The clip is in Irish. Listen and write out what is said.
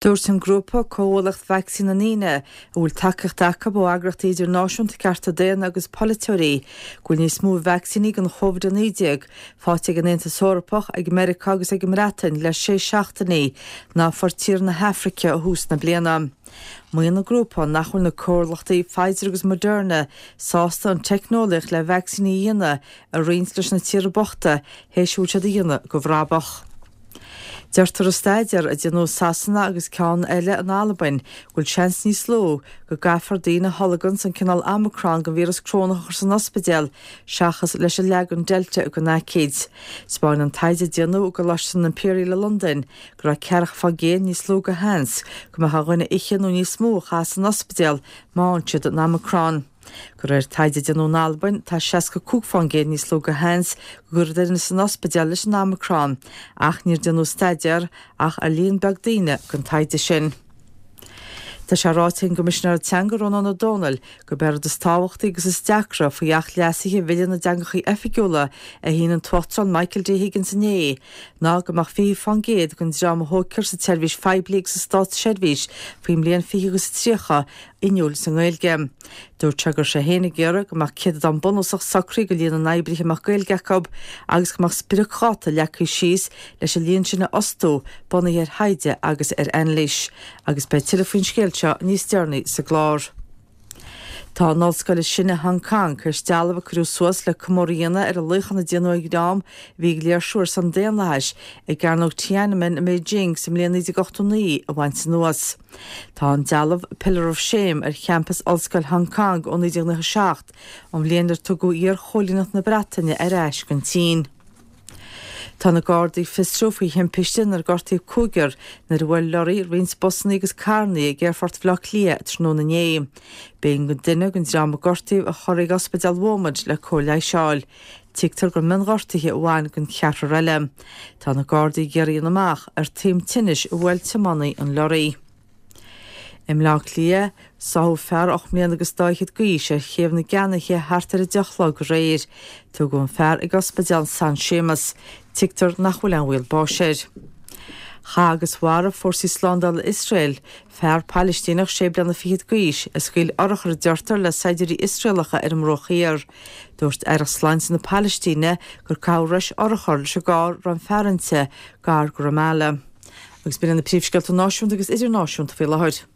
Dúirt an grúpa Comhlucht Vacsaín na nDaoine, a bhfuil tacaíocht acu ó eagraíochtaí idirnáisiúnta cearta daonna agus polaiteoirí, go bhfuil níos mó vacsaíní don Chovid-19 faighte ag an Aontas Eorpach, ag Meiriceá agus ag an mBreatain le sé seachtainí ná a fuair tíortha na hAfraice ó thús na bliana. Maíonn an grúpa nach bhfuil na comhlachtaí Pfizer agus Moderna sásta an teicneolaíocht le vacsaíní a dhéanamh a roinnt leis na tíortha bochta théis a bhfuil siad a dhéanamh de bhrabach. Deirtear i staidéar a déanadh i Sasana agus ceann eile in Albain go bhfuil seans níos lú go gcaithfear daoine a tholganns an cineál Omicron den víreas corónach a chur san ospidéal seachas leis an leagan Delta den aicíd. 'Spáin an taighde a déanadh i gColáiste an Imperial i Londain go raibh 40% níos lú de sheans go mbeadh ar dhuine oíche nó níos mó a chaitheamh san ospidéal má fhaigheann siad an Omicron. De réir taighde a déanadh in Albain, tá 65% níos lú de sheans go gcuirfí duine san ospidéal leis an Omicron, ach níor déanadh staidéar ach ar líon beag daoine don taighde sin. Tá sé ráite ag an gCoimisinéir Teanga Rónán Ó Domhnaill gurb é an rud is tábhachtaí agus is deacra faoi Acht Leasaithe Bhille na dTeangacha Oifigiúla a shínigh an tUachtarán Michael D Higgins inné ná go mbeadh 20% den dream a thógfar sa tseirbhís phoiblí agus sa státseirbhís faoin mbliain 2030 inniúil sa nGaeilge. Dúirt sé go raibh sé féin ag iarraidh go mbeadh céatadán bunúsach socraithe de líon na n-oibrithe a mbeadh Gaeilge acu agus go mbeadh spriocdháta leagtha síos leis an líon sin a fhostú, bunaithe ar thaighde agus ar anailís. Agus beidh tuilleadh faoin scéal seo níos deireanaí sa gclár. Tá an ollscoil is sine i Hong Kong tar éis dealbh a cuireadh suas le comóradh a dhéanamh ar an luíochán a déanadh ag dream a bhí ag léirsiú ar son daonlathais i gCearnóg Tiananmen i mBeijing sa mbliain 1989 a bhaint anuas. Tá an dealbh Pillar of Shame ar champas Ollscoil Hong Kong ó 1997, an bhliain ar tugadh iar-choilíneacht na Breataine ar ais don tSín. Tá na Gardaí ag fiosrú faoi thimpiste inar gortaíodh cúigear nuair a bhuail lorraí roinnt busanna agus carranna ag Aerfort Bhaile Átha Cliath tráthnóna inné. B'éigean do duine den dream a gortaíodh a chur ag Ospidéal Bheaumont le cóir leighis a fháil. Tuigtear gur mionghortuithe a bhain don cheathrar eile. Tá na Gardaí ag iarraidh a dhéanamh amach ar taom tinnis a bhuail tiománaí an lorraí. I mBleá Cliath, sáthadh fear 8 mbliana agus dá fhichead d'aois ar Chéibh na gCeannaithe thart ar 10 a chlog aréir. Tugadh an fear ag Ospidéal San Séamas. Tuigtear nach bhfuil aon bhaol báis air. Chaith agus mharaigh fórsaí slándála Iosrael Fear Palaistíneach sé bliana fichead d'aois a scaoil urchar a deirtear le saighdiúirí Iosraelacha ar an mBruach Thiar. Dúirt Aireacht Sláinte na Palaistíne gur caitheadh rois urchar leis an gcarr a raibh an fear inti, gar do Ramallah. Agus b'in iad na príomhscéalta náisiúnta agus idirnáisiúnta faoi láthair.